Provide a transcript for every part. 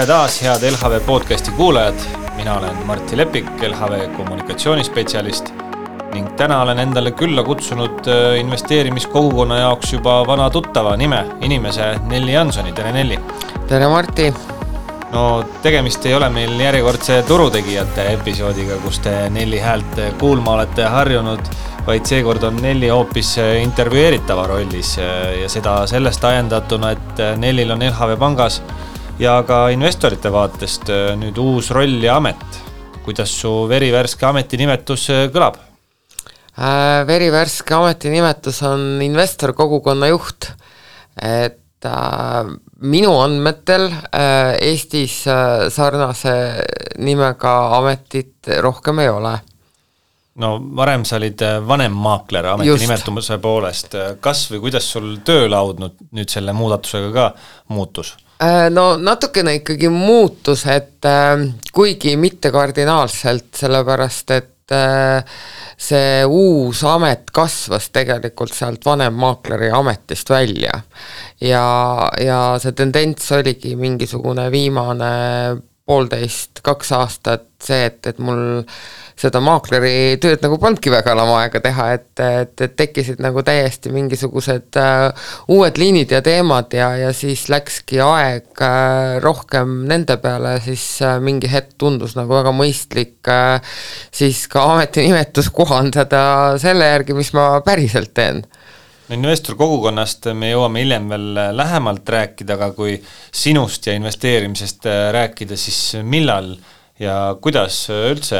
Tere taas, head LHV podcasti kuulajad. Mina olen Martti Lepik, LHV kommunikatsioonispetsialist ning täna olen endale külla kutsunud investeerimiskogukonna jaoks juba vana tuttava inimese Nelli Jansoni. Tere Nelli! Tere Martti! No tegemist ei ole meil järjekordse turutegijate episoodiga, kus te Nelli häält kuulma olete harjunud, vaid seekord on Nelli hoopis intervjueeritava rollis ja seda sellest ajendatuna, et Nellil on LHV pangas ja ka investorite vaatest nüüd uus roll ja amet. Kuidas su verivärske ametinimetus kõlab? Verivärske ametinimetus on investor kogukonna juht. Et minu andmetel Eestis sarnase nimega ametit rohkem ei ole. No varem sa olid vanem maakler ametinimetumuse poolest. Kas või kuidas sul töölaud nüüd selle muudatusega ka muutus? No natukene ikkagi muutus, et kuigi mitte kardinaalselt, sellepärast, et see uus amet kasvas tegelikult sealt vanem maakleri ametist välja ja see tendents oligi mingisugune viimane 1,5–2 aastat see, et mul seda maakleri tööd nagu polnudki väga aega teha, et tekkisid nagu täiesti mingisugused uued liinid ja teemad ja siis läkski aeg rohkem nende peale, siis mingi hetk tundus nagu väga mõistlik siis ka ametinimetus kohandada selle järgi, mis ma päriselt teen. Investor kogukonnast me jõuame hiljem veel lähemalt rääkida, aga kui sinust ja investeerimisest rääkida, siis millal ja kuidas üldse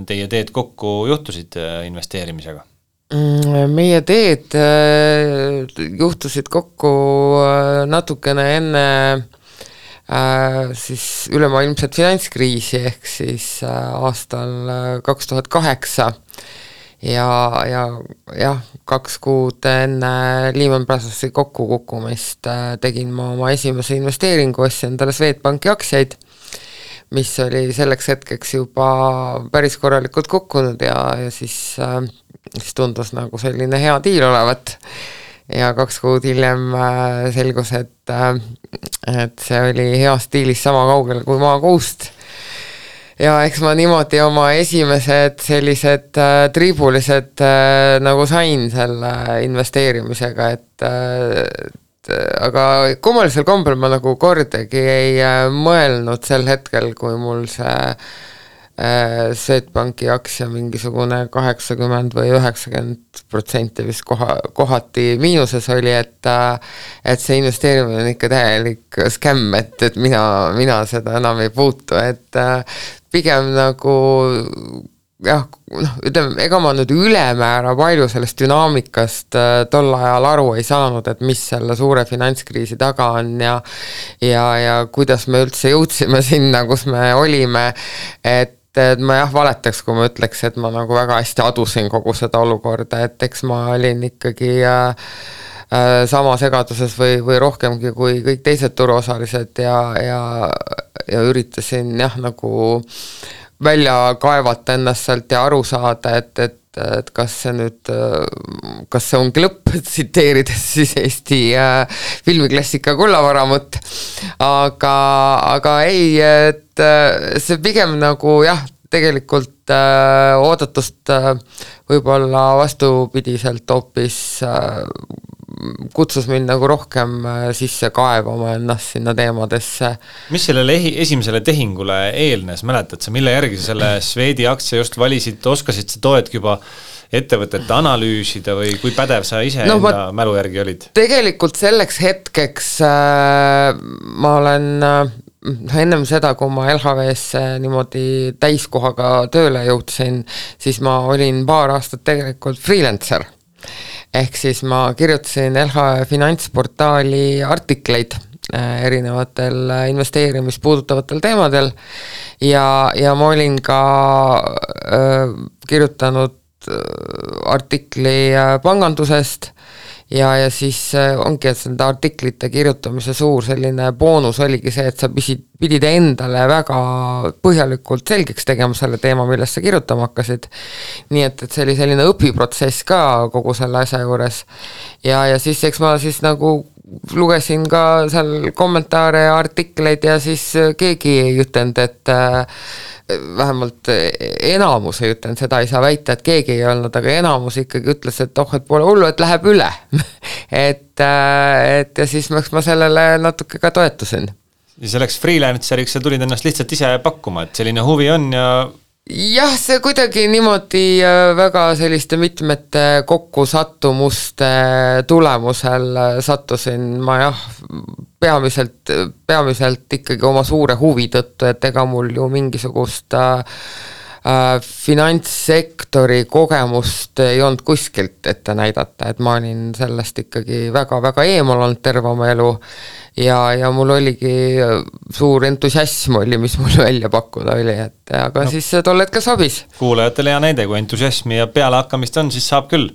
teie teed kokku juhtusid investeerimisega? Meie teed juhtusid kokku natukene enne siis ülemaailmset finantskriisi ehk siis aastal 2008 ja 2 kuud enne Lehman Brothersi kokkukukkumist tegin ma oma esimese investeeringu, ostsin endale Swedbanki aktsiaid, mis oli selleks hetkeks juba päris korralikult kukkunud ja siis tundus nagu selline hea diil olevat. Ja 2 kuud hiljem selgus, et see oli hea stiilis sama kaugel kui maakuust. Ja eks ma niimoodi oma esimesed sellised triibulised nagu sain selle investeerimisega, aga kummalisel kombel ma nagu kordagi ei mõelnud sel hetkel, kui mul see Swedbanki aktsia mingisugune 80 või 90% vist kohati miinuses oli, et see investeerimine on ikka täielik skämm, et mina seda enam ei puutu, et pigem nagu ütleme, ega ma nüüd ülemäära palju sellest dünaamikast tol ajal aru ei saanud, et mis selle suure finantskriisi taga on ja kuidas me üldse jõudsime sinna, kus me olime, et ma valetaks, kui ma ütleks, et ma nagu väga hästi adusin kogu seda olukorda, et eks ma olin ikkagi sama segaduses või rohkemgi kui kõik teised turuosalised ja üritasin nagu välja kaevata ennast sealt ja aru saada, et kas see ongi lõpp, tsiteerides siis Eesti filmiklassika Kullavaramut, aga ei, et see pigem nagu tegelikult oodatust võib-olla vastupidiselt hoopis kutsus mind nagu rohkem sisse kaevama ennast sinna teemadesse. Mis sellele esimesele tehingule eelnes, mäletad sa, mille järgi sa selle Swedi aktsia just valisid, oskasid sa toetki juba ettevõtete analüüsida või kui pädev sa ise enda mälu järgi olid? Tegelikult selleks hetkeks ma olen ennem seda, kui ma LHV-sse niimoodi täiskohaga tööle jõudsin, siis ma olin 2 aastat tegelikult freelancer. Ehk siis ma kirjutasin LHV finantsportaali artikleid erinevatel investeerimist puudutavatel teemadel ja ma olin ka kirjutanud artikli pangandusest ja siis ongi, et seda artiklite kirjutamise suur selline boonus oligi see, et sa pidid endale väga põhjalikult selgeks tegema selle teema, millest sa kirjutama hakkasid. Nii et see oli selline õpiprotsess ka kogu selle asja juures. Ja siis eks ma siis nagu lugesin ka seal kommentaare ja artikleid ja siis keegi ei ütelnud, et vähemalt enamus ei ütelnud, seda ei saa väita, et keegi ei olnud, aga enamus ikkagi ütles, et et pole hullu, et läheb üle et ja siis ma sellele natuke ka toetusin. Ja selleks freelanceriks sa tulid ennast lihtsalt ise pakkuma, et selline huvi on ja jah, see kuidagi niimoodi väga selliste mitmete kokkusattumuste tulemusel sattusin ma peamiselt ikkagi oma suure huvi tõttu, et ega mul ju mingisugust finantssektori kogemust ei olnud kuskilt ette näidata, et ma olin sellest ikkagi väga-väga eemal olnud terve oma elu ja mul oligi suur entusiasm oli, mis mul välja pakkuda oli, et aga siis tol hetkel sobis. Kuulajatele hea näide, kui entusiasmi ja pealehakkamist on, siis saab küll.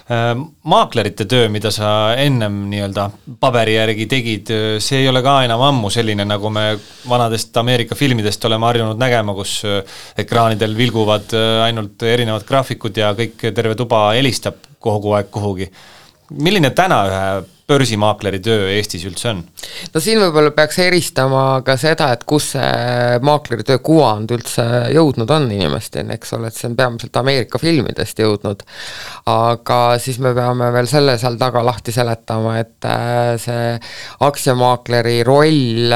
Maaklerite töö, mida sa ennem nii-öelda paberi järgi tegid, see ei ole ka enam ammu selline, nagu me vanadest Ameerika filmidest oleme harjunud nägema, kus ekraanidel vilguvad ainult erinevad graafikud ja kõik terve tuba helistab kogu aeg kuhugi. Milline täna ühe börsimaakleri töö Eestis üldse on? No siin võib-olla peaks eristama ka seda, et kus see maakleri töö kuvand üldse jõudnud on inimesteni, eks ole, et see on peamiselt Ameerika filmidest jõudnud, aga siis me peame veel selle seal taga lahti seletama, et see aktsiamaakleri roll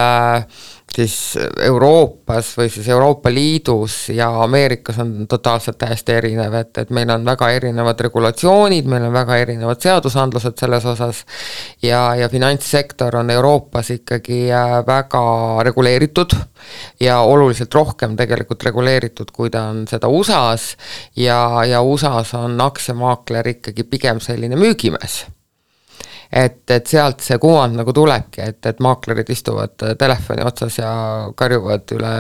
siis Euroopas või siis Euroopa Liidus ja Ameerikas on totaalselt täiesti erinev, et meil on väga erinevad regulatsioonid, meil on väga erinevad seadusandlused selles osas ja finantssektor on Euroopas ikkagi väga reguleeritud ja oluliselt rohkem tegelikult reguleeritud, kui ta on seda USA-s ja USA-s on aktsiamaakler ikkagi pigem selline müügimees. Et sealt see kuvand nagu tulebki, et maaklerid istuvad telefoni otsas ja karjuvad üle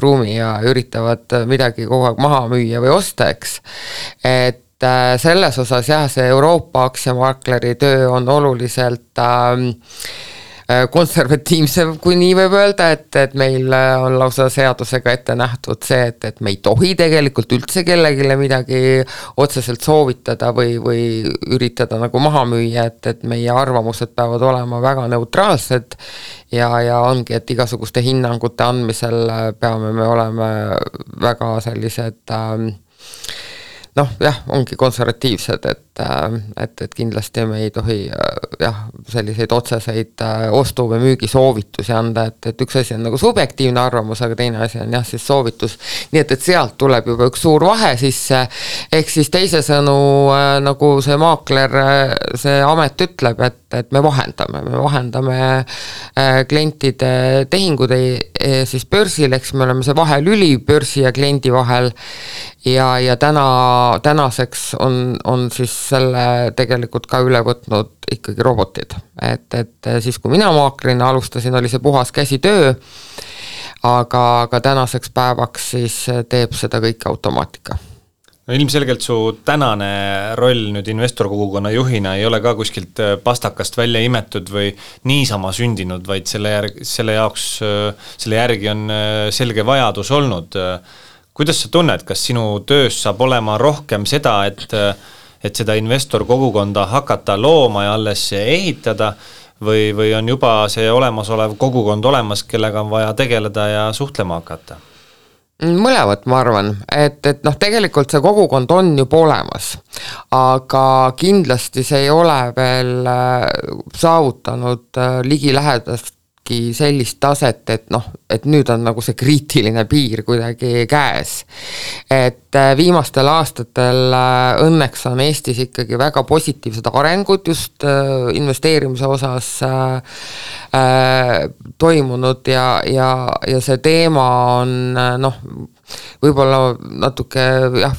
ruumi ja üritavad midagi kogu aeg maha müüa või osta, eks. Et selles osas jah, see Euroopa aktsiamaakleri töö on oluliselt konservatiivse, kui nii võib öelda, et meil on lausa seadusega ette nähtud see, et me ei tohi tegelikult üldse kellegile midagi otseselt soovitada või üritada nagu maha müüa, et meie arvamused peavad olema väga neutraalsed ja ongi, et igasuguste hinnangute andmisel peame me olema väga sellised ongi konservatiivsed, et kindlasti me ei tohi selliseid otseseid ostu- või müügisoovitusi anda, et üks asi on nagu subjektiivne arvamus, aga teine asi on siis soovitus. Nii et sealt tuleb juba üks suur vahe sisse, ehk siis teise sõnu nagu see maakler, see amet ütleb, et me vahendame klientide tehingud siis börsil, eks me oleme see vahelüli börsi ja kliendi vahel ja tänaseks on siis selle tegelikult ka üle võtnud ikkagi robotid, et siis kui mina maaklerina alustasin, oli see puhas käsitöö, aga tänaseks päevaks siis teeb seda kõike automaatika. No ilmselgelt su tänane roll nüüd investorkogukonna juhina ei ole ka kuskilt pastakast välja imetud või niisama sündinud, vaid selle järgi on selge vajadus olnud. Kuidas sa tunned, kas sinu töös saab olema rohkem seda, et seda investorkogukonda hakata looma ja alles ehitada või on juba see olemasolev kogukond olemas, kellega on vaja tegeleda ja suhtlema hakata? Mõlevat ma arvan, et tegelikult see kogukond on juba olemas, aga kindlasti see ei ole veel saavutanud ligilähedastki sellist taset, et nüüd on nagu see kriitiline piir kuidagi käes. Et viimastel aastatel õnneks on Eestis ikkagi väga positiivsed arengud just investeerimise osas toimunud ja see teema on võib-olla natuke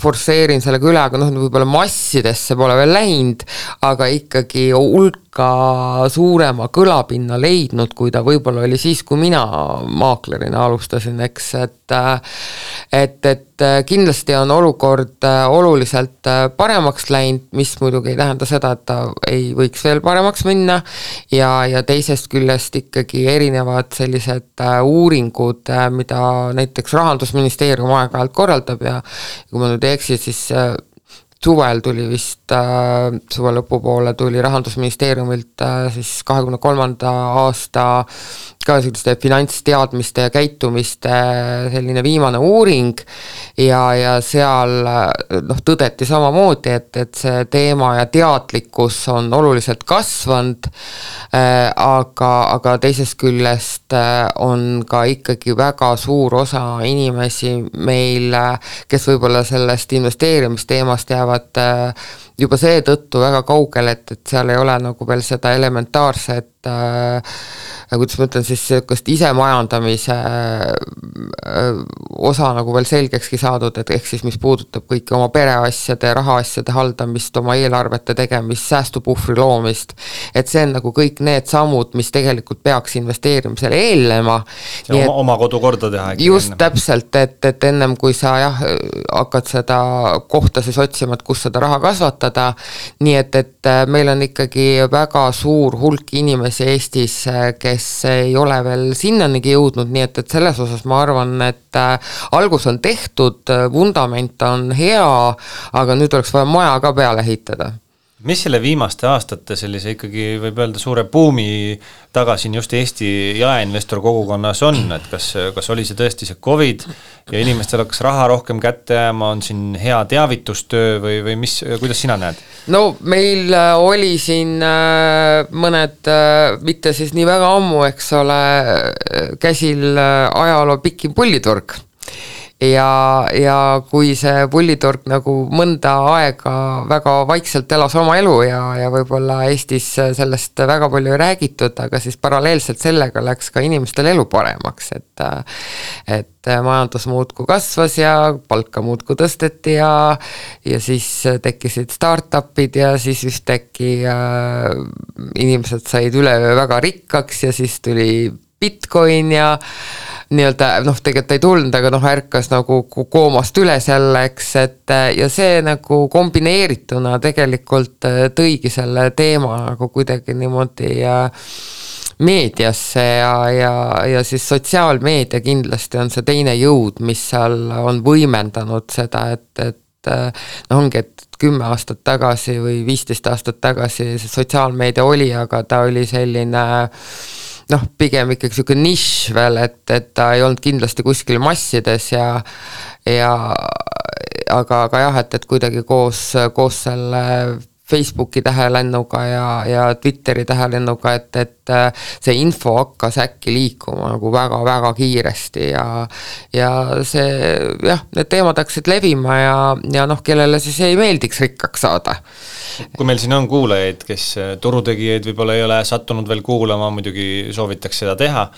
forsseerin sellega üle, aga võib-olla massidesse pole veel läinud, aga ikkagi hulka suurema kõlapinna leidnud, kui ta võib-olla oli siis, kui mina maaklerina alustasin, eks, et kindlasti on olukord oluliselt paremaks läinud, mis muidugi ei tähenda seda, et ta ei võiks veel paremaks minna ja teisest küljest ikkagi erinevad sellised uuringud, mida näiteks Rahandusministeerium aeg-ajalt korraldab ja kui ma nüüd ei eksi, siis suvel tuli vist, suve lõpupoole tuli Rahandusministeeriumilt siis 23. aasta ka selliste finantsteadmiste ja käitumiste selline viimane uuring ja seal tõdeti samamoodi, et see teema ja teadlikkus on oluliselt kasvanud, aga teisest küljest on ka ikkagi väga suur osa inimesi meil, kes võib-olla sellest investeerimisteemast jäävad juba seetõttu väga kaugel, et seal ei ole nagu veel seda elementaarset kuidas ma ütlen siis sellist isemajandamise osa nagu veel selgekski saadud, et ehk siis mis puudutab kõiki oma pereasjade, rahaasjade haldamist, oma eelarvete tegemist, säästupuhvri loomist, et see on nagu kõik need sammud, mis tegelikult peaks investeerimisele eelnema. Oma kodu korda teha. Just täpselt, et ennem kui sa hakkad seda kohta siis otsima, et kus seda raha kasvatada, nii et meil on ikkagi väga suur hulk inimesi Eestis, kes ei ole veel sinnanigi jõudnud, nii et selles osas ma arvan, et algus on tehtud, vundament on hea, aga nüüd oleks vaja maja ka peale ehitada. Mis selle viimaste aastate sellise ikkagi võib öelda suure buumi taga siin just Eesti jaeinvestor kogukonnas on, et kas oli see tõesti see COVID ja inimestel hakkas raha rohkem kätte jääma, on siin hea teavitustöö või mis, kuidas sina näed? No meil oli siin mõned, mitte siis nii väga ammu, eks ole, käsil ajaloo pikim pulliturg. Ja kui see pulliturg nagu mõnda aega väga vaikselt elas oma elu ja võib-olla Eestis sellest väga palju ei räägitud, aga siis paralleelselt sellega läks ka inimestel elu paremaks, et majandus muudku kasvas ja palka muudku tõsteti ja siis tekkisid startupid ja siis ühtäkki inimesed said üleöö väga rikkaks ja siis tuli Bitcoin ja nii-öelda, tegelikult ei tulnud, aga ärkas nagu koomast üles jälleks, ja see nagu kombineerituna tegelikult tõigi selle teema nagu kuidagi niimoodi meediasse ja siis sotsiaalmeedia kindlasti on see teine jõud, mis seal on võimendanud seda, et ongi, et 10 aastat tagasi või 15 aastat tagasi see sotsiaalmeedia oli, aga ta oli selline pigem ikkagi selline nišš veel, et ta ei olnud kindlasti kuskil massides aga jah, et kuidagi koos selle Facebooki tähelennuga ja Twitteri tähelennuga, et see info hakkas äkki liikuma nagu väga-väga kiiresti ja see, need teemad hakkasid levima ja kellele siis ei meeldiks rikkaks saada. Kui meil siin on kuulajaid, kes turutegijaid võib-olla ei ole sattunud veel kuulama, muidugi soovitaks seda teha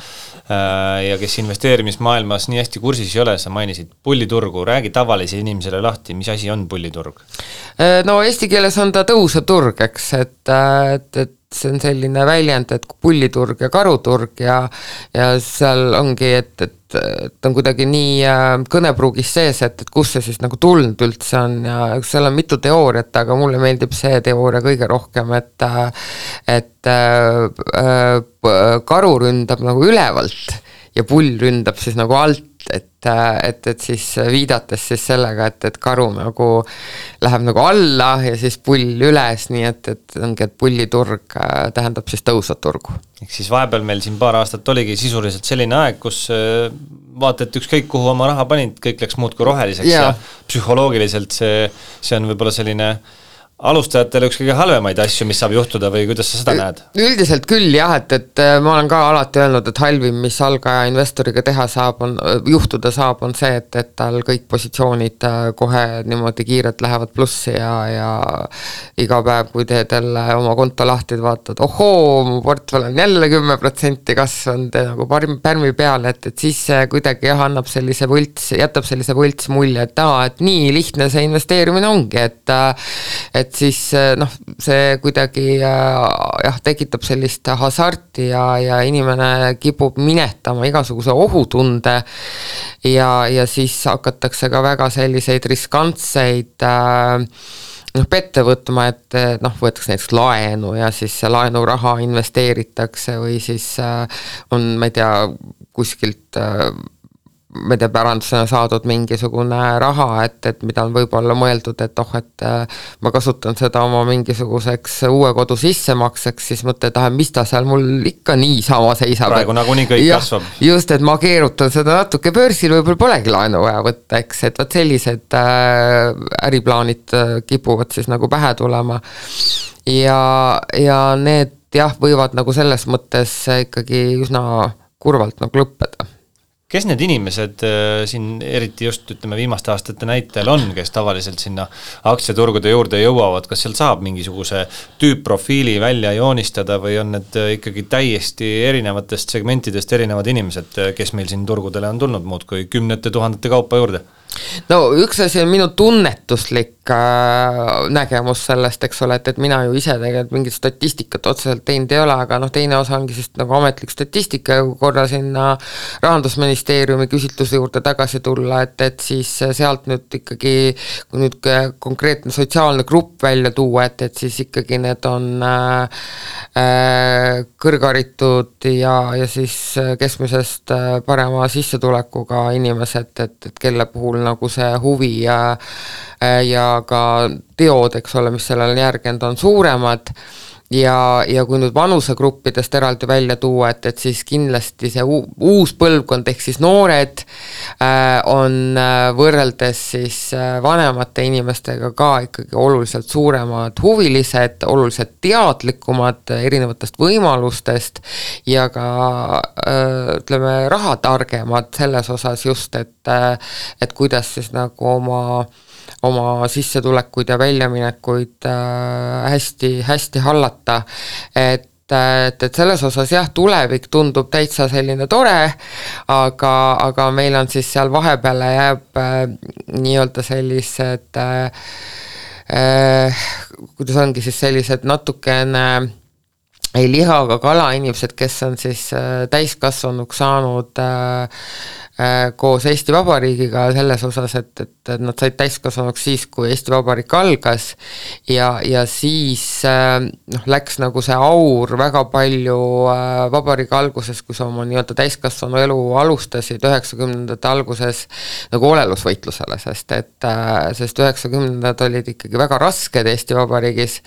ja kes investeerimismaailmas nii hästi kursis ei ole, sa mainisid pulliturgu, räägi tavalise inimesele lahti, mis asi on pulliturg? No eesti keeles on ta tõusev turg, eks, et see on selline väljend, et pulliturg ja karuturg ja seal ongi, et on kuidagi nii kõnepruugis sees, et kus see siis nagu tulnud üldse on ja seal on mitu teooriat, aga mulle meeldib see teooria kõige rohkem, et karu ründab nagu ülevalt ja pull ründab siis nagu alt, et siis viidates siis sellega, et karu nagu läheb nagu alla ja siis pull üles, nii et ongi, et pulliturg tähendab siis tõusvat turgu. Ehk siis vahepeal meil siin paar aastat oligi sisuliselt selline aeg, kus vaata, et ükskõik kuhu oma raha panid, kõik läks muud kui roheliseks ja psühholoogiliselt see on võib-olla selline alustajatele üks kõige halvemaid asju, mis saab juhtuda või kuidas sa seda näed? Üldiselt küll jah, et ma olen ka alati öelnud, et halvim, mis algaja investoriga juhtuda saab, on see, et tal kõik positsioonid kohe niimoodi kiirelt lähevad plussi ja iga päev, kui teed jälle oma konto lahti, vaatad, mu portfell on jälle 10% kasvanud nagu pärmi peale, et siis kuidagi annab jätab sellise võlts mulje, et nii lihtne see investeerimine ongi, et siis see kuidagi tekitab sellist hasarti ja inimene kipub minetama igasuguse ohutunde ja siis hakatakse ka väga selliseid riskantseid pette võtma, et võetakse näiteks laenu ja siis see laenuraha investeeritakse või siis on, ma ei tea, kuskilt ma ei tea, pärandusena saadud mingisugune raha, et mida on võib-olla mõeldud, et et ma kasutan seda oma mingisuguseks uue kodu sissemakseks, siis mõtled, et mis ta seal mul ikka niisama seisab. Praegu nagunii kõik kasvab. Just, et ma keerutan seda natuke börsil, võib-olla polegi laenu vaja võtta, eks, et võt sellised äriplaanid kipuvad siis nagu pähe tulema ja need võivad nagu selles mõttes ikkagi üsna kurvalt nagu lõppeda. Kes need inimesed siin eriti just ütleme viimaste aastate näitel on, kes tavaliselt sinna aktsiaturgude juurde jõuavad, kas seal saab mingisuguse tüüpprofiili välja joonistada või on need ikkagi täiesti erinevatest segmentidest erinevad inimesed, kes meil siin turgudele on tulnud muud kui kümnete tuhandete kaupa juurde? No üks asi on minu tunnetuslik nägemus sellest, eks ole, et mina ju ise tegelikult mingit statistikat otseselt teinud ei ole, aga teine osa ongi siis nagu ametlik statistika, kui korra sinna Rahandusministeeriumi küsitluse juurde tagasi tulla, et siis sealt nüüd ikkagi, kui nüüd konkreetne sotsiaalne grupp välja tuua, et siis ikkagi need on kõrgharitud ja siis keskmisest parema sissetulekuga inimesed, et kelle puhul nagu see huvi ja ka teod, eks ole, mis sellele järgend on suuremad ja kui nüüd vanusegruppidest eraldi välja tuua, et siis kindlasti see uus põlvkond ehk siis noored on võrreldes siis vanemate inimestega ka ikkagi oluliselt suuremad huvilised, oluliselt teadlikumad erinevatest võimalustest ja ka ütleme rahatargemad selles osas just, et kuidas siis nagu oma sissetulekuid ja väljaminekuid hästi hallata, et selles osas tulevik tundub täitsa selline tore, aga meil on siis seal vahepeale jääb nii-öelda sellised kuidas ongi siis sellised natukene ei lihaga kala inimesed, kes on siis täiskasvanuks saanud koos Eesti Vabariigiga selles osas, et nad said täiskasvanuks siis, kui Eesti Vabariik algas ja siis läks nagu see aur väga palju vabariigi alguses, kui sa oma nii-öelda täiskasvanu elu alustasid 90ndate alguses nagu olelusvõitlusele, sest 90ndad olid ikkagi väga rasked Eesti Vabariigis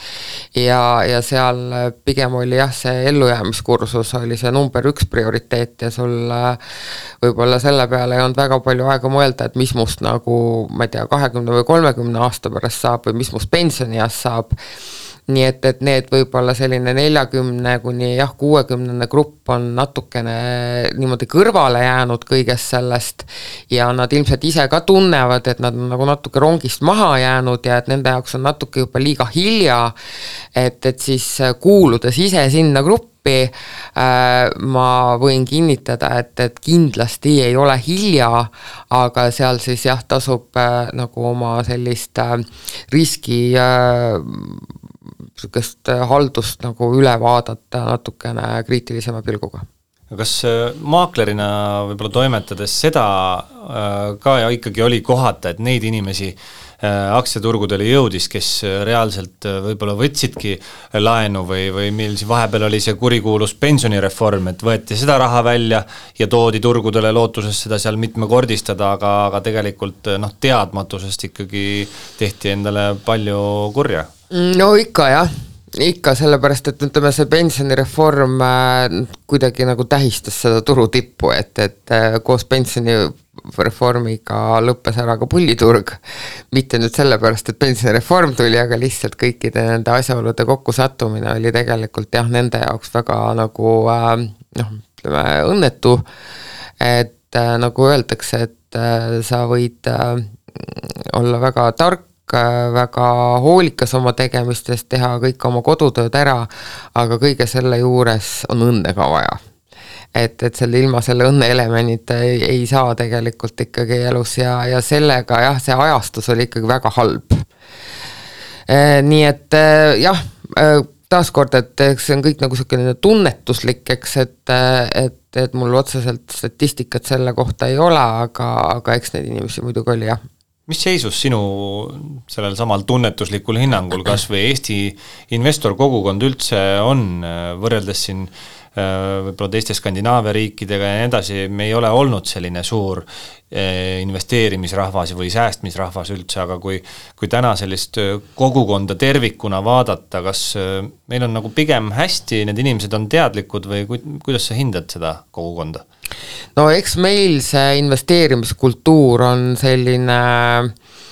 ja seal pigem oli see ellujäämiskursus oli see number 1 prioriteet ja sul võib-olla selle peale ei olnud väga palju aega mõelda, et mis must nagu, ma ei tea, 20 või 30 aasta pärast saab või mis must pensionieas saab. Nii et need võib-olla selline 40 kuni 60 grupp on natukene niimoodi kõrvale jäänud kõigest sellest ja nad ilmselt ise ka tunnevad, et nad on nagu natuke rongist maha jäänud ja et nende jaoks on natuke juba liiga hilja, et siis kuuludes ise sinna gruppi ma võin kinnitada, et kindlasti ei ole hilja, aga seal siis tasub nagu oma sellist riski haldust nagu üle vaadata natukene kriitilisema pilguga. Kas maaklerina võib-olla toimetades seda ka ja ikkagi oli kohata, et neid inimesi aktsiaturgudele jõudis, kes reaalselt võib-olla võtsidki laenu või meil siin vahepeal oli see kurikuulus pensionireform, et võeti seda raha välja ja toodi turgudele lootuses seda seal mitmekordistada, aga tegelikult teadmatusest ikkagi tehti endale palju kurja. No ikka sellepärast, et ütleme see pensionireform kuidagi nagu tähistas seda turutippu, et koos pensionireformiga lõppes ära ka pulliturg, mitte nüüd sellepärast, et pensionireform tuli, aga lihtsalt kõikide nende asjaolude kokkusattumine oli tegelikult nende jaoks väga nagu ütleme õnnetu, et nagu öeldakse, et sa võid olla väga tark, väga hoolikas oma tegemistest, teha kõik oma kodutööd ära, aga kõige selle juures on õnne ka vaja. Et selle ilma selle õnne elementita ei saa tegelikult ikkagi elus ja sellega see ajastus oli ikkagi väga halb. Nii et taaskord, et see on kõik nagu selline tunnetuslik, eks, et mul otseselt statistikat selle kohta ei ole, aga eks neid inimesi muidugi oli, jah. Mis seisus sinu sellel samal tunnetuslikul hinnangul kas või Eesti investor kogukond üldse on võrreldes siin võib-olla teiste Skandinaavia riikidega ja nii edasi, me ei ole olnud selline suur investeerimisrahvas või säästmisrahvas üldse, aga kui täna sellist kogukonda tervikuna vaadata, kas meil on nagu pigem hästi, need inimesed on teadlikud või kuidas sa hindad seda kogukonda? No eks meil see investeerimiskultuur on selline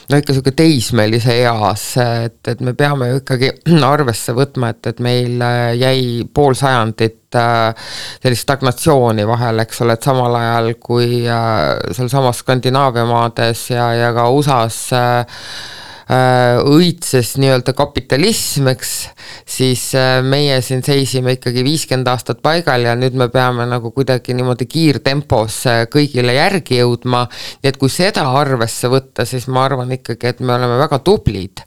ikka selline teismelise eas, et me peame ju ikkagi arvesse võtma, et meil jäi pool sajandit sellist stagnatsiooni vahel, eks ole, et samal ajal kui seal samas Skandinaavia maades ja ka USAs õitses nii-öelda kapitalism, eks, siis meie siin seisime ikkagi 50 aastat paigal ja nüüd me peame nagu kuidagi niimoodi kiirtempos kõigile järgi jõudma, nii et kui seda arvesse võtta, siis ma arvan ikkagi, et me oleme väga tublid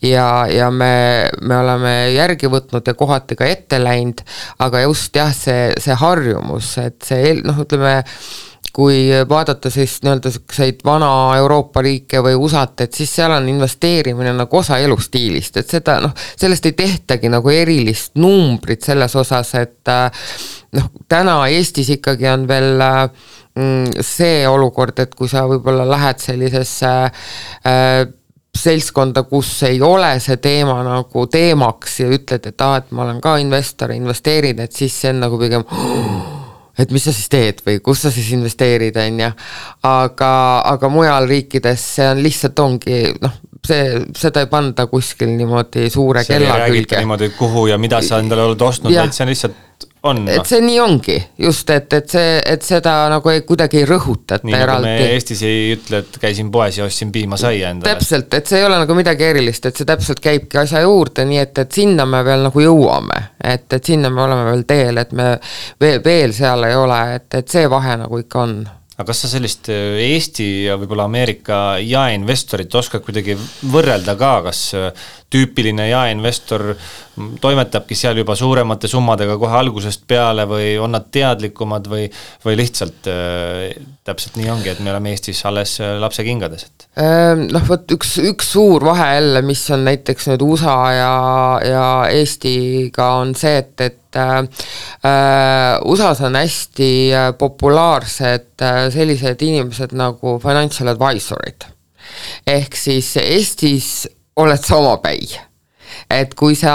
ja me oleme järgi võtnud ja kohati ka ette läinud, aga just jah, see harjumus, et see, ütleme, kui vaadata siis nii-öelda selliseid vana Euroopa riike või USA-t, et siis seal on investeerimine nagu osa elustiilist, et seda, sellest ei tehtagi nagu erilist numbrit selles osas, et täna Eestis ikkagi on veel see olukord, et kui sa võib-olla lähed sellisesse seltskonda, kus ei ole see teema nagu teemaks ja ütled, et ma olen ka investor, investeerin, et siis see on nagu pigem et mis sa siis teed või kus sa siis investeerid, on ja. Aga mujal riikides see on lihtsalt ongi, seda ei panda kuskil niimoodi suure kella külge. See ei räägita niimoodi, kuhu ja mida sa endale oled ostnud, vaid see on lihtsalt on. Et see nii ongi, just, et seda nagu kuidagi ei rõhutata nii eraldi. Nii nagu me Eestis ei ütle, et käisin poes ja ostsin piima saia endale. Täpselt, et see ei ole nagu midagi erilist, et see täpselt käibki asja juurde, nii et sinna me veel nagu jõuame, et sinna me oleme veel teel, et me veel seal ei ole, et see vahe nagu ikka on. Aga kas sa sellist Eesti ja võib-olla Ameerika jaeinvestorit oskad kuidagi võrrelda ka, kas tüüpiline jaeinvestor toimetabki seal juba suuremate summadega kohe algusest peale või on nad teadlikumad või lihtsalt täpselt nii ongi, et me oleme Eestis alles lapsekingades? Võt üks suur vahe jälle, mis on näiteks nüüd USA ja Eestiga on see, et USAs on hästi populaarsed sellised inimesed nagu financial advisorid. Ehk siis Eestis oled sa omapäi. Et kui sa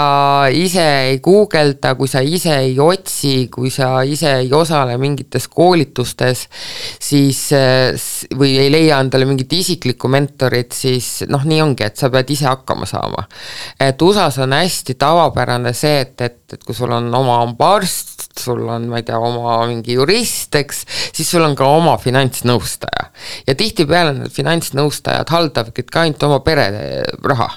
ise ei guugelda, kui sa ise ei otsi, kui sa ise ei osale mingites koolitustes, siis või ei leia endale mingit isiklikku mentorit, siis nii ongi, et sa pead ise hakkama saama. Et USAs on hästi tavapärane see, et kui sul on oma arst, sul on, ma ei tea, oma mingi jurist, eks, siis sul on ka oma finantsnõustaja. Ja tihtipeale need finantsnõustajad haldavadki ka ainult oma pere raha.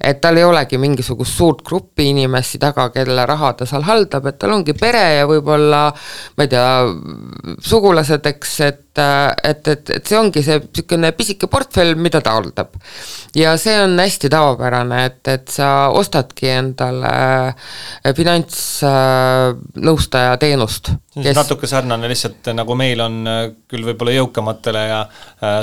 Et tal ei olegi mingisugust suurt gruppi inimesi taga, kelle raha ta seal haldab, et tal ongi pere ja võib-olla, ma ei tea, sugulased, eks, et see ongi see selline pisike portfell, mida ta haldab. Ja see on hästi tavapärane, et sa ostadki endale finantsnõustaja teenust. Natuke sarnane lihtsalt, nagu meil on küll võib-olla jõukamatele ja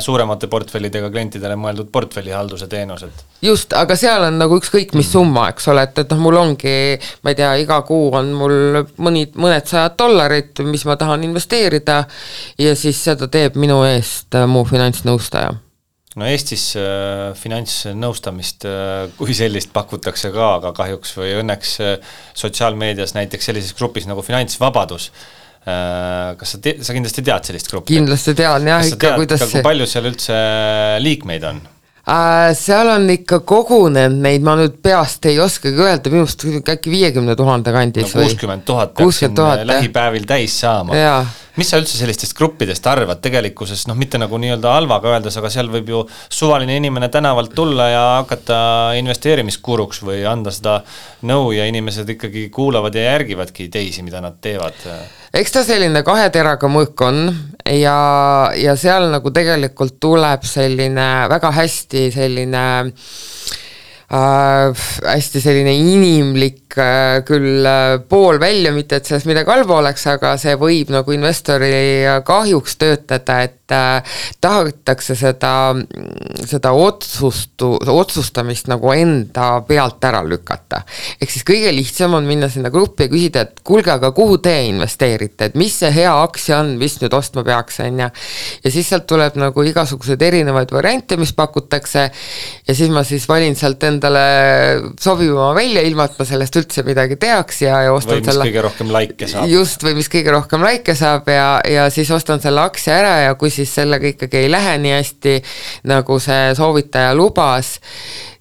suuremate portfellidega klientidele mõeldud portfellihalduse teenused. Just, aga seal on nagu ükskõik mis summa, eks ole, et mul ongi, ma ei tea, iga kuu on mul mõned $100, mis ma tahan investeerida ja siis seda teeb minu eest mu finantsnõustaja. No Eestis finantsnõustamist kui sellist pakutakse ka, aga kahjuks või õnneks sotsiaalmeedias näiteks sellises grupis nagu Finantsvabadus. Kas sa kindlasti tead sellist gruppi? Kindlasti tean, jah. Kas sa tead, kuidas kui palju seal üldse liikmeid on? Seal on ikka kogunenud neid, ma nüüd peast ei oskagi öelda, minust äkki 50 000 kandis või? 60 000 peaks lähipäevil täis saama. Jaa. Mis sa üldse sellistest gruppidest arvad tegelikkuses, mitte nagu nii-öelda halvaga öeldes, aga seal võib ju suvaline inimene tänavalt tulla ja hakata investeerimiskuruks või anda seda nõu ja inimesed ikkagi kuulavad ja järgivadki teisi, mida nad teevad. Eks ta selline kahe teraga mõõk on ja seal nagu tegelikult tuleb selline väga hästi selline hästi selline inimlik küll pool välja, mitte et sellest midagi halba oleks, aga see võib nagu investori kahjuks töötada, et tahetakse seda otsustamist nagu enda pealt ära lükata. Ehk siis kõige lihtsam on minna sinna gruppi ja küsida, et kuulge, aga kuhu te investeerite, et mis see hea aktsia on, mis nüüd ostma peaks, ja siis sealt tuleb nagu igasugused erinevaid variante, mis pakutakse ja siis ma siis valin sealt endale sobivama välja, ilma et ma sellest üldse midagi teaks ja ostan või mis kõige rohkem laike saab. Just, või mis kõige rohkem laike saab ja siis ostan selle aktsia ära ja kui siis sellega ikkagi ei lähe nii hästi, nagu see soovitaja lubas,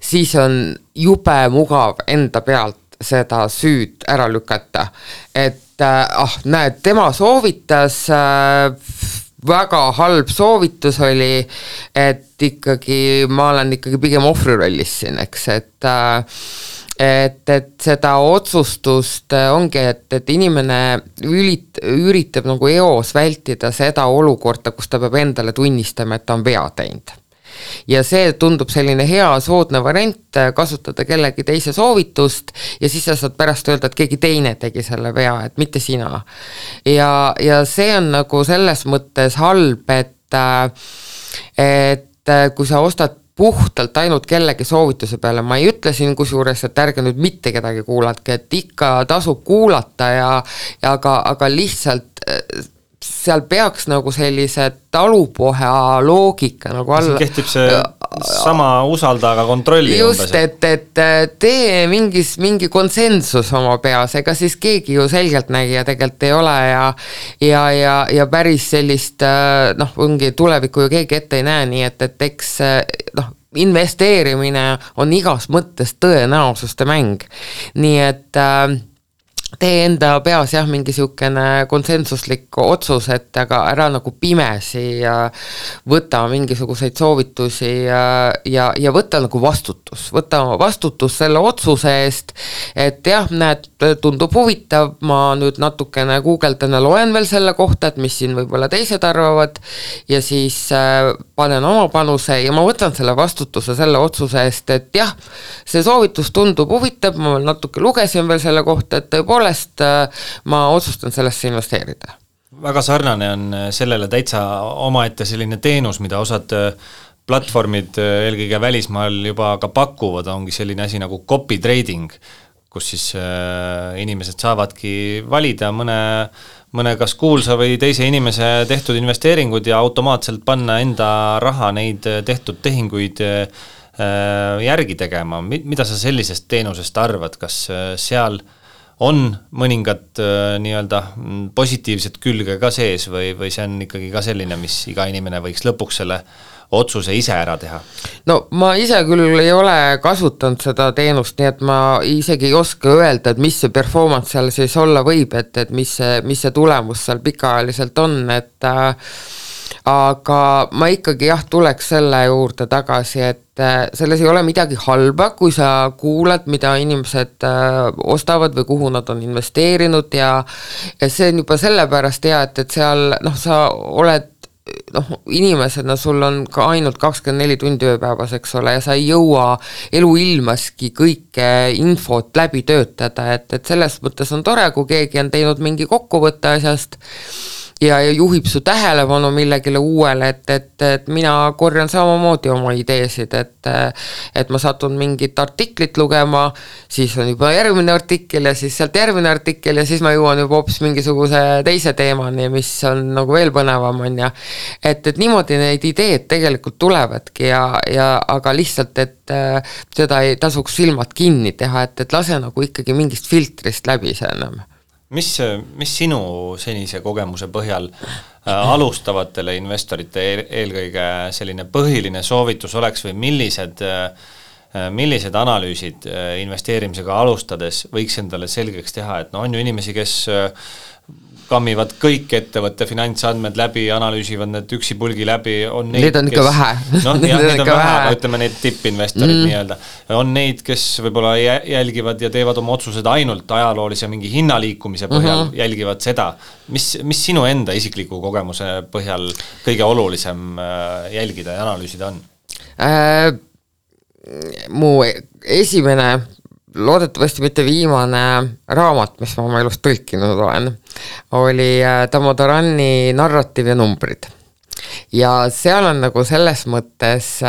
siis on jube mugav enda pealt seda süüd ära lükata. Et näed, tema soovitas, väga halb soovitus oli, et ikkagi ma olen ikkagi pigem ohvrirollis siin, eks, et seda otsustust ongi, et inimene üritab nagu eos vältida seda olukorda, kus ta peab endale tunnistama, et ta on vea teinud. Ja see tundub selline hea soodne variant kasutada kellegi teise soovitust ja siis sa saad pärast öelda, et keegi teine tegi selle vea, et mitte sina. Ja see on nagu selles mõttes halb, et kui sa ostad puhtalt ainult kellegi soovituse peale, ma ei ütle siin kusjuures, et ärge nüüd mitte kedagi kuulatke, et ikka tasub kuulata aga lihtsalt seal peaks nagu sellise talupoha loogika nagu alla. Kehtib see sama usalda, aga kontrolli. Just, et tee mingi konsensus oma peas, ega siis keegi ju selgelt nägija tegelikult ei ole ja päris sellist, ongi tulevikku ju keegi ette ei näe, nii et eks investeerimine on igas mõttes tõenäosuste mäng. Nii et tee enda peas mingi siukene konsensuslik otsus, et aga ära nagu pimesi ja võta mingisuguseid soovitusi ja võta nagu vastutus selle otsuse eest, et näed, tundub huvitav, ma nüüd natukene guugeldan ja loen veel selle kohta, et mis siin võib-olla teised arvavad ja siis panen oma panuse ja ma võtan selle vastutuse selle otsuse eest, et see soovitus tundub huvitav, ma natuke lugesin veel selle kohta, et tõepoolest ma otsustan sellesse investeerida. Väga sarnane on sellele täitsa omaette selline teenus, mida osad platvormid eelkõige välismaal juba ka pakuvad, ongi selline asi nagu copy trading, kus siis inimesed saavadki valida mõne kas kuulsa või teise inimese tehtud investeeringud ja automaatselt panna enda raha neid tehtud tehinguid järgi tegema. Mida sa sellisest teenusest arvad, kas seal on mõningad nii-öelda positiivsed külge ka sees või see on ikkagi ka selline, mis iga inimene võiks lõpuks selle otsuse ise ära teha? No ma ise küll ei ole kasutanud seda teenust, nii et ma isegi ei oska öelda, et mis see performance seal siis olla võib, et mis see tulemus seal pikaajaliselt on, aga ma ikkagi tuleks selle juurde tagasi, et selles ei ole midagi halba, kui sa kuulad, mida inimesed ostavad või kuhu nad on investeerinud ja see on juba sellepärast hea, et seal sa oled inimesena, sul on ka ainult 24 tundi ööpäevas, eks ole, ja sa ei jõua eluilmaski kõike infot läbi töötada, et selles mõttes on tore, kui keegi on teinud mingi kokkuvõtte asjast ja juhib su tähelepanu millegile uuele, et mina korjan samamoodi oma ideesid, et ma satun mingit artiklit lugema, siis on juba järgmine artikkel ja siis sealt järgmine artikkel ja siis ma jõuan juba hoopis mingisuguse teise teemani, mis on nagu veel põnevam on ja et niimoodi neid ideed tegelikult tulevadki aga lihtsalt, et seda ei tasuks silmad kinni teha, et lase nagu ikkagi mingist filtrist läbi see enam. Mis sinu senise kogemuse põhjal alustavatele investorite eelkõige selline põhiline soovitus oleks või millised analüüsid investeerimisega alustades võiks endale selgeks teha, et on ju inimesi, kes kammivad kõik ettevõtte finantsandmed läbi, analüüsivad need üksipulgi läbi, on neid on ikka vähe. Neid on vähe, aga ütleme neid tippinvestorid nii-öelda. On neid, kes võib-olla jälgivad ja teevad oma otsused ainult ajaloolise mingi hinnaliikumise põhjal, jälgivad seda. Mis sinu enda isikliku kogemuse põhjal kõige olulisem jälgida ja analüüsida on? mu esimene, loodetavasti mitte viimane raamat, mis ma oma elust tõlkinud olen, oli Damodarani Narratiiv ja numbrid. Ja seal on nagu selles mõttes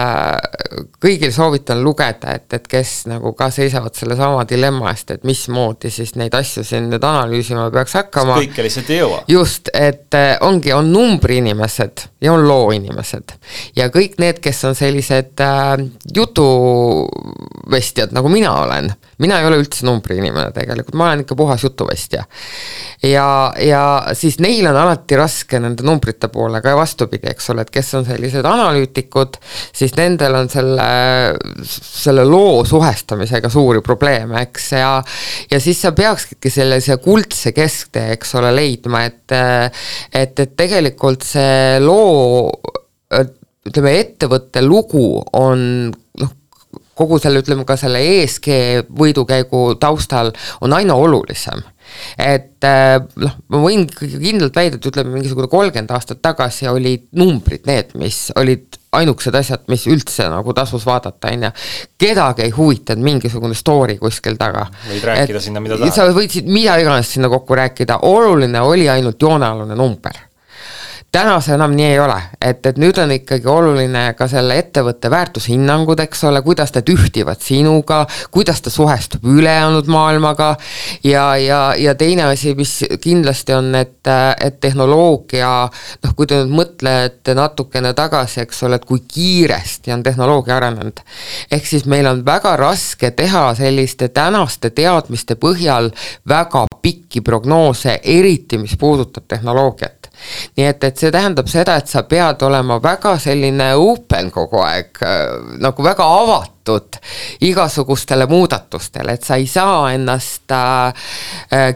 kõigil soovitan lugeda, et kes nagu ka seisavad selle sama dilemma eest, et mismoodi siis neid asju siin nüüd analüüsima peaks hakkama. Kõike lihtsalt ei jõua. Just, et on numbri inimesed ja on loo inimesed. Ja kõik need, kes on sellised jutuvestjad, nagu mina olen. Mina ei ole üldse numbri inimene tegelikult, ma olen ikka puhas jutuvestja. Ja siis neil on alati raske nende numbrite poolega ja vastupidi, eks ole, et kes on sellised analüütikud, siis nendel on selle loo suhestamisega suuri probleeme, eks, ja siis sa peakski sellise kuldse kesktee, eks ole, leidma, et tegelikult see loo, ütleme, ettevõtte lugu on kogu selle, ütleme ka selle ESG võidukäigu taustal on aina olulisem. Et ma võin kindlalt väida, et ütleme mingisugune 30 aastat tagasi olid numbrid need, mis olid ainukesed asjad, mis üldse nagu tasus vaadata, kedagi ei huvitanud mingisugune story kuskil taga. Võid rääkida sinna, mida tahad. Sa võidsid mida iganes sinna kokku rääkida, oluline oli ainult joonealune number. Täna see enam nii ei ole, et nüüd on ikkagi oluline ka selle ettevõtte väärtushinnangud, eks ole, kuidas ta ühtivad sinuga, kuidas ta suhestub ülejäänud maailmaga ja teine asi, mis kindlasti on, et tehnoloogia, kui te nüüd mõtlete natukene tagasi, eks ole, et kui kiiresti on tehnoloogia arenenud. Ehk siis meil on väga raske teha selliste tänaste teadmiste põhjal väga pikki prognoose, eriti mis puudutab tehnoloogiat. Nii et see tähendab seda, et sa pead olema väga selline open kogu aeg, nagu väga avatud igasugustele muudatustele, et sa ei saa ennast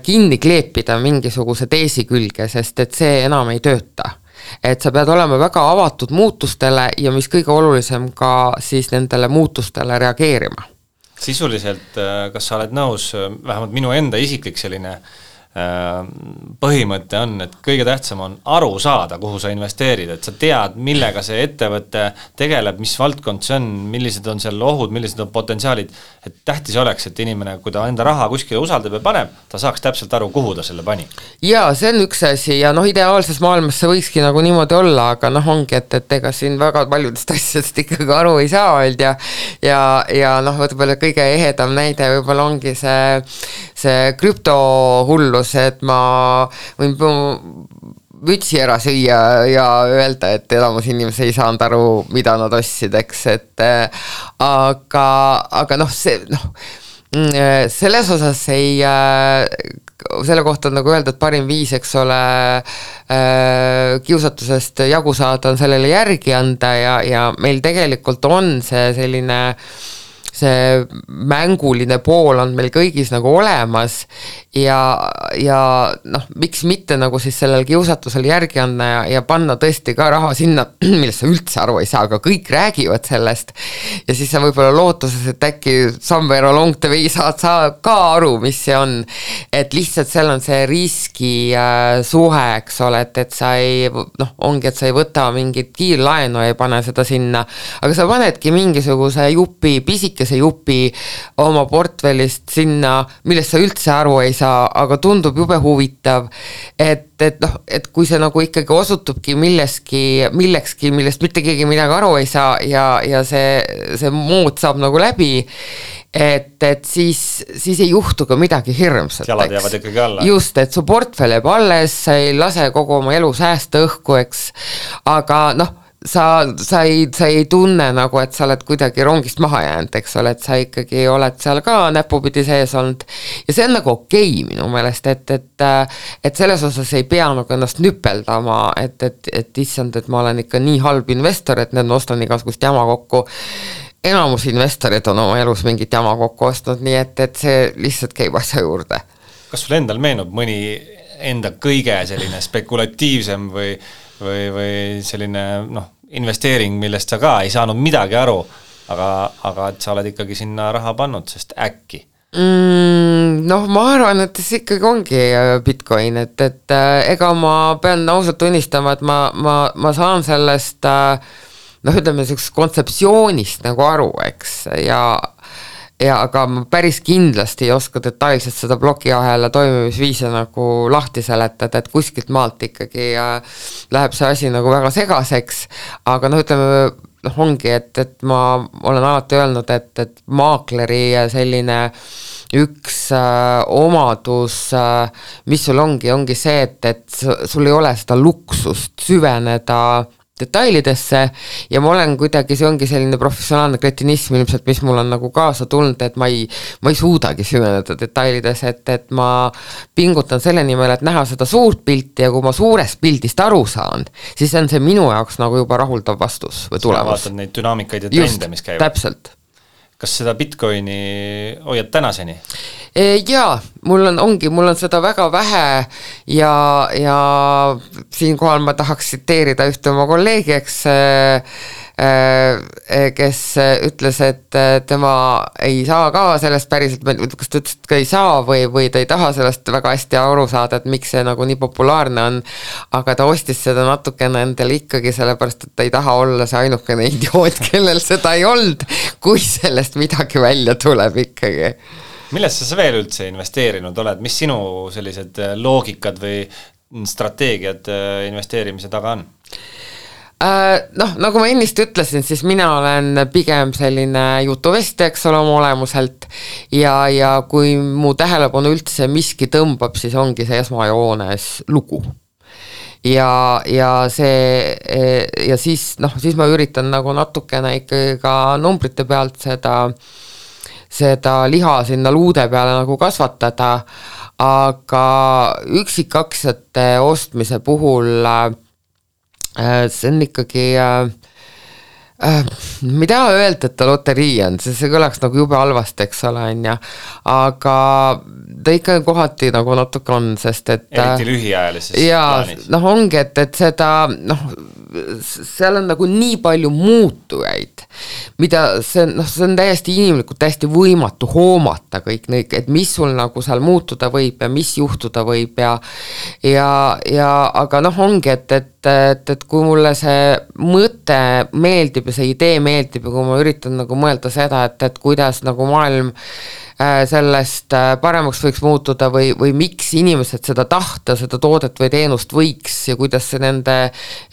kinni kleepida mingisuguse teesi külge, sest et see enam ei tööta. Et sa pead olema väga avatud muutustele ja mis kõige olulisem ka siis nendele muutustele reageerima. Sisuliselt, kas sa oled nõus, vähemalt minu enda isiklik selline põhimõte on, et kõige tähtsam on aru saada, kuhu sa investeerid, et sa tead, millega see ettevõte tegeleb, mis valdkond see on, millised on seal ohud, millised on potentsiaalid, et tähtis oleks, et inimene, kui ta enda raha kuskile usaldab ja paneb, ta saaks täpselt aru, kuhu ta selle pani. Ja see on üks asi ja ideaalses maailmas see võikski nagu niimoodi olla, aga ongi, et ega siin väga paljudest asjadest ikkagi aru ei saa olnud ja võtame kõige ehedam näide võib-olla ongi see krüptohullu, et ma võin mütsi ära süüa ja öelda, et elamus inimesi ei saanud aru, mida nad ostsid, eks, et aga selles osas selle kohta on nagu öelda, et parim viis, eks ole, kiusatusest jagu saada on sellele järgi anda ja meil tegelikult on see selline see mänguline pool on meil kõigis nagu olemas ja miks mitte nagu siis sellel kiusatusel järgi anda ja panna tõesti ka raha sinna, millest sa üldse aru ei saa, aga kõik räägivad sellest ja siis sa võib-olla lootuses, et äkki somewhere along the way saad ka aru, mis see on, et lihtsalt seal on see riski suhe, eks ole, et sa ei, ongi, et sa ei võta mingit kiirlaenu ja ei pane seda sinna, aga sa panedki mingisuguse pisikese jupi oma portfellist sinna, millest sa üldse aru ei saa, aga tundub jube huvitav, et kui see nagu ikkagi osutubki millekski, millest mitte keegi midagi aru ei saa ja see mood saab nagu läbi, et siis ei juhtu ka midagi hirmsat. Jalad jäävad ikkagi alla. Just, et su portfell jääb alles, sa ei lase kogu oma elu säästa õhku, eks, aga sa ei tunne nagu, et sa oled kuidagi rongist maha jäänud, eks ole, et sa ikkagi oled seal ka näpupidi sees olnud ja see on nagu okei minu meelest, et selles osas ei pea nagu ennast nüpeldama, et issand, et ma olen ikka nii halb investor, et need ostan igasugust jama kokku. Enamus investorid on oma elus mingit jama kokku ostnud, nii et see lihtsalt käib asja juurde. Kas sul endal meenub mõni enda kõige selline spekulatiivsem või selline investeering, millest sa ka ei saanud midagi aru, aga et sa oled ikkagi sinna raha pannud, sest äkki? Ma arvan, et see ikkagi ongi Bitcoin, et ega ma pean ausalt tunnistama, et ma saan sellest noh, ütleme sellisest kontseptsioonist nagu aru, eks, ja aga ma päris kindlasti ei oska detailselt seda plokiahela toimimisviise nagu lahti seletada, et kuskilt maalt ikkagi läheb see asi nagu väga segaseks, aga noh, ütleme, noh, ongi, et ma olen alati öelnud, et maakleri selline üks omadus, mis sul ongi see, et sul ei ole seda luksust süveneda detailidesse ja ma olen kuidagi, see ongi selline professionaalne kretinism ilmselt, mis mul on nagu kaasa tulnud, et ma ei suudagi süveneda detailides, et ma pingutan selle nimel, et näha seda suurt pilti ja kui ma suurest pildist aru saan, siis on see minu jaoks nagu juba rahuldav vastus või tulemus. Vaatad neid dünaamikaid ja trende, mis käivad. Täpselt. Kas seda Bitcoini hoiad tänaseni? Jaa, mul on seda väga vähe ja siinkohal ma tahaks tsiteerida ühte oma kolleegi, kes ütles, et tema ei saa ka sellest päriselt, kas ta ütles, et ei saa või ta ei taha sellest väga hästi aru saada, et miks see nagu nii populaarne on, aga ta ostis seda natukene endale ikkagi sellepärast, et ta ei taha olla see ainukene idioot, kellel seda ei olnud, kui sellest midagi välja tuleb ikkagi. Millesse sa veel üldse investeerinud oled? Mis sinu sellised loogikad või strateegiad investeerimise taga on? Noh, nagu ma ennist ütlesin, siis mina olen pigem selline jutuvesti, eks ole, oma olemuselt ja kui mu tähelepanu üldse miski tõmbab, siis ongi see esmajoones lugu. Ja siis, noh, siis ma üritan nagu natukene ikkagi ka numbrite pealt seda liha sinna luude peale nagu kasvatada, aga üksikaktsiate ostmise puhul see on ikkagi ma ei taha öelda, et ta loterii on, see kõlaks nagu jube halvasti, eks ole, aga ta ikka kohati nagu natuke on, sest et eriti lühiajalises plaanis. Noh, ongi, et seda, noh, seal on nagu nii palju muutujaid, mida see on täiesti inimlikult, täiesti võimatu hoomata kõik neid, et mis sul nagu seal muutuda võib ja mis juhtuda võib ja aga noh, ongi, et kui mulle see mõte meeldib ja see idee meeldib ja kui ma üritan nagu mõelda seda, et kuidas nagu maailm sellest paremaks võiks muutuda või miks inimesed seda tahta, seda toodet või teenust võiks ja kuidas see nende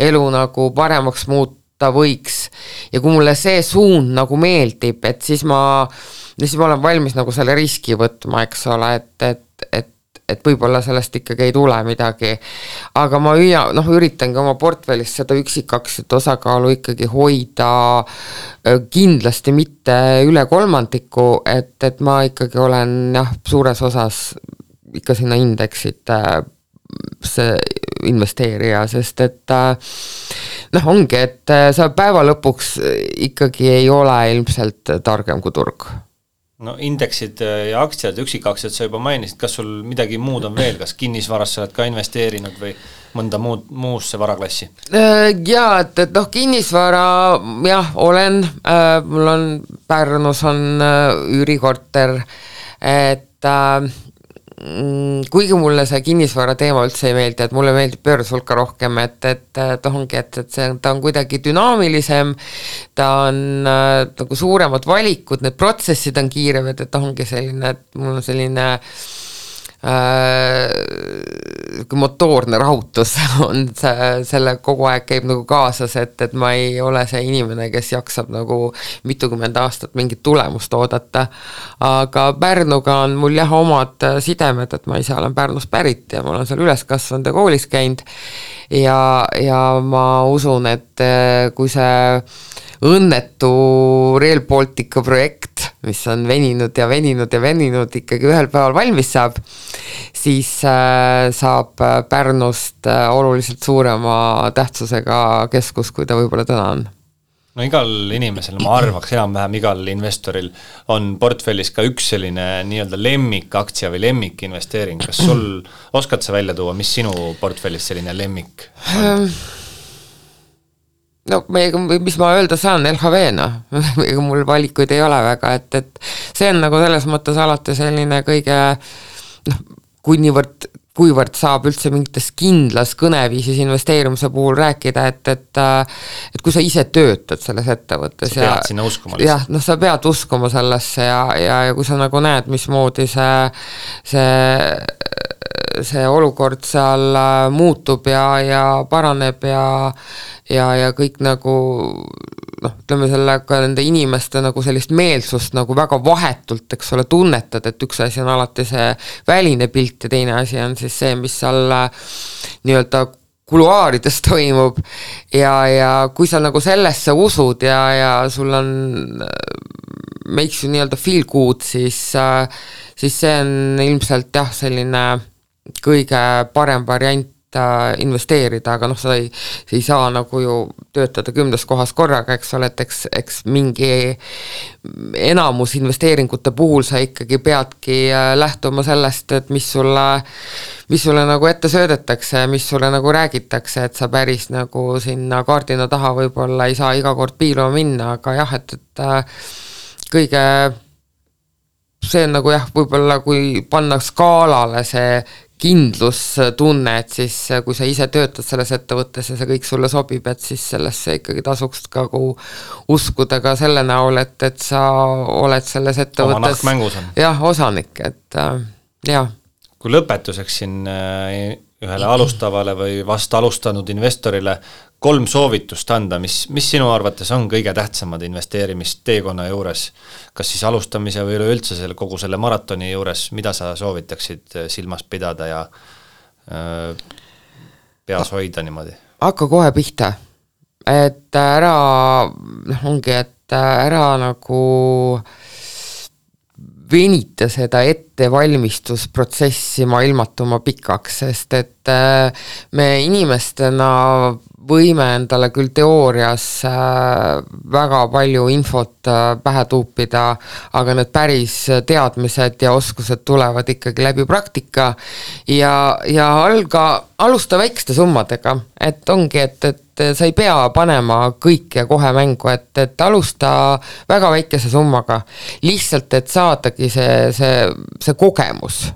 elu nagu paremaks muuta võiks ja kui mulle see suund nagu meeldib, et siis ma olen valmis nagu selle riski võtma, eks ole, et võib-olla sellest ikkagi ei tule midagi, aga ma üritangi oma portfellis seda üksikaktsiat osakaalu ikkagi hoida kindlasti mitte üle 3%, et ma ikkagi olen suures osas ikka sinna indeksit see investeerija, sest et ongi, et sa päeva lõpuks ikkagi ei ole ilmselt targem kui turg. No indeksid ja aktsiad, üksikaktsiad sa juba mainisid, kas sul midagi muud on veel, kas kinnisvarasse oled ka investeerinud või mõnda muusse varaklassi? Jaa, et kinnisvara olen, mul on Pärnus on üürikorter, et kuigi mulle see kinnisvara teema üldse ei meeldi, et mulle meeldib börs hulka rohkem, et ongi, et ta on kuidagi dünaamilisem, ta on nagu suuremad valikud, need protsessid on kiirevad, et ongi selline, et mul on selline motoorne rahutus on selle kogu aeg käib nagu kaasas, et ma ei ole see inimene, kes jaksab nagu mitukümmend aastat mingit tulemust oodata, aga Pärnuga on mul omad sidemed, et ma ise olen Pärnust pärit ja ma olen seal üles kasvanud ja koolis käinud ja ma usun, et kui see õnnetu Rail Baltica projekt, mis on veninud ikkagi ühel päeval valmis saab, siis saab Pärnust oluliselt suurema tähtsusega keskus, kui ta võib-olla täna on. No igal inimesel, ma arvaks enam-vähem igal investoril on portfellis ka üks selline nii-öelda lemmikaktsia või lemmikinvesteering. Kas sul oskad sa välja tuua, mis sinu portfellis selline lemmik on? No, mis ma öelda saan, LHV-na, ega mul valikuid ei ole väga, et see on nagu selles mõttes alati selline kõige, kui niivõrd kuivõrd saab üldse mingites kindlas kõneviisis investeerimise puhul rääkida, et kui sa ise töötad selles ettevõttes sa pead sinna uskuma jah, sa pead uskuma sellesse ja kui sa nagu näed, mismoodi see olukord seal muutub ja paraneb ja kõik nagu ütleme sellega nende inimeste nagu sellist meelsust nagu väga vahetult, eks ole, tunnetad, et üks asi on alati see väline pilt ja teine asi on siis see, mis seal nii-öelda kuluaarides toimub ja kui sa nagu sellesse usud ja sul on makes you nii-öelda feel good, siis see on ilmselt jah, selline kõige parem variant investeerida, aga sa ei saa nagu ju töötada 10 kohas korraga, eks ole, et eks mingi enamus investeeringute puhul sa ikkagi peadki lähtuma sellest, et mis sulle nagu ette söödetakse, mis sulle nagu räägitakse, et sa päris nagu sinna kaardina taha võib-olla ei saa iga kord piiluma minna, aga jah, et kõige see on nagu jah, võib-olla kui panna skaalale see kindlustunne, et siis kui sa ise töötad selles ettevõttes ja see kõik sulle sobib, et siis sellesse ikkagi tasuks ka uskuda ka selle näol, et sa oled selles ettevõttes oma nahk mängus on. Jah, osanik, et jah. Kui lõpetuseks siin ühele alustavale või vast alustanud investorile 3 soovitust anda, mis sinu arvates on kõige tähtsamad investeerimisteekonna juures, kas siis alustamise või üleüldse kogu selle maratoni juures, mida sa soovitaksid silmas pidada ja peas hoida niimoodi? Hakka kohe pihta, et ära nagu venita seda ettevalmistusprotsessi ilmatuma pikaks, sest et me inimestena võime endale küll teoorias väga palju infot pähe tuupida, aga need päris teadmised ja oskused tulevad ikkagi läbi praktika ja alusta väikeste summadega, et ongi, et sa ei pea panema kõike kohe mängu, et alusta väga väikese summaga, lihtsalt, et saadagi see kogemus.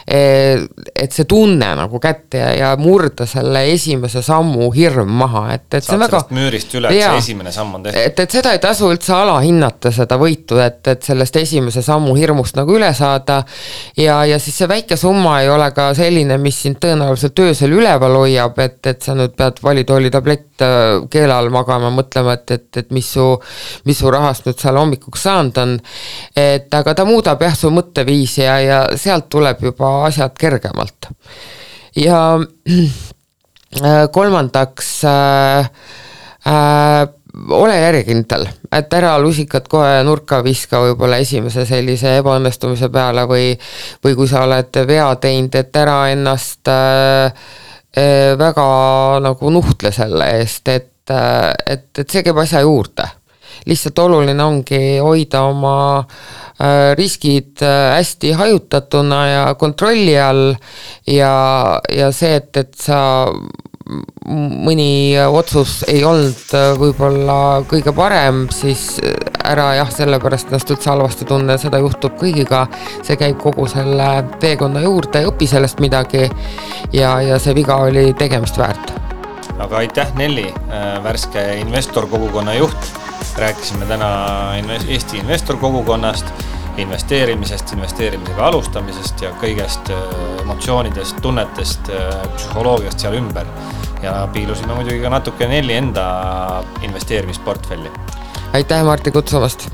Et see tunne nagu kätte ja murda selle esimese sammu hirm maha, et see on väga sellest müürist üle, et see esimene samm on tehtud. Et seda ei tasu üldse alahinnata seda võitu, et sellest esimese sammu hirmust nagu üle saada ja siis see väike summa ei ole ka selline, mis sind tõenäoliselt öösel üleval hoiab, et sa nüüd pead valitooli tablett keele all magama, mõtlema, et mis su rahast nüüd seal hommikuks saanud on, et aga ta muudab jah su mõtteviisi ja sealt tuleb juba asjad kergemalt. Ja kolmandaks ole järjekindel, et ära lusikad kohe nurka viska võib-olla esimese sellise ebaõnnestumise peale või kui sa oled vea teinud, et ära ennast väga nagu nuhtle selle eest, et see käib asja juurde. Lihtsalt oluline ongi hoida oma riskid hästi hajutatuna ja kontrolli all ja see, et sa mõni otsus ei olnud võib-olla kõige parem, siis ära jah, sellepärast ennast üldse halvasti tunne, seda juhtub kõigiga, see käib kogu selle teekonna juurde, õpi sellest midagi ja see viga oli tegemist väärt. Aga aitäh Nelli, värske investorkogukonna juht. Rääkisime täna Eesti investorkogukonnast, investeerimisest, investeerimisega alustamisest ja kõigest emotsioonidest, tunnetest, psühholoogiast seal ümber. Ja piilusime muidugi ka natuke Nelli enda investeerimisportfelli. Aitäh Martti kutsumast!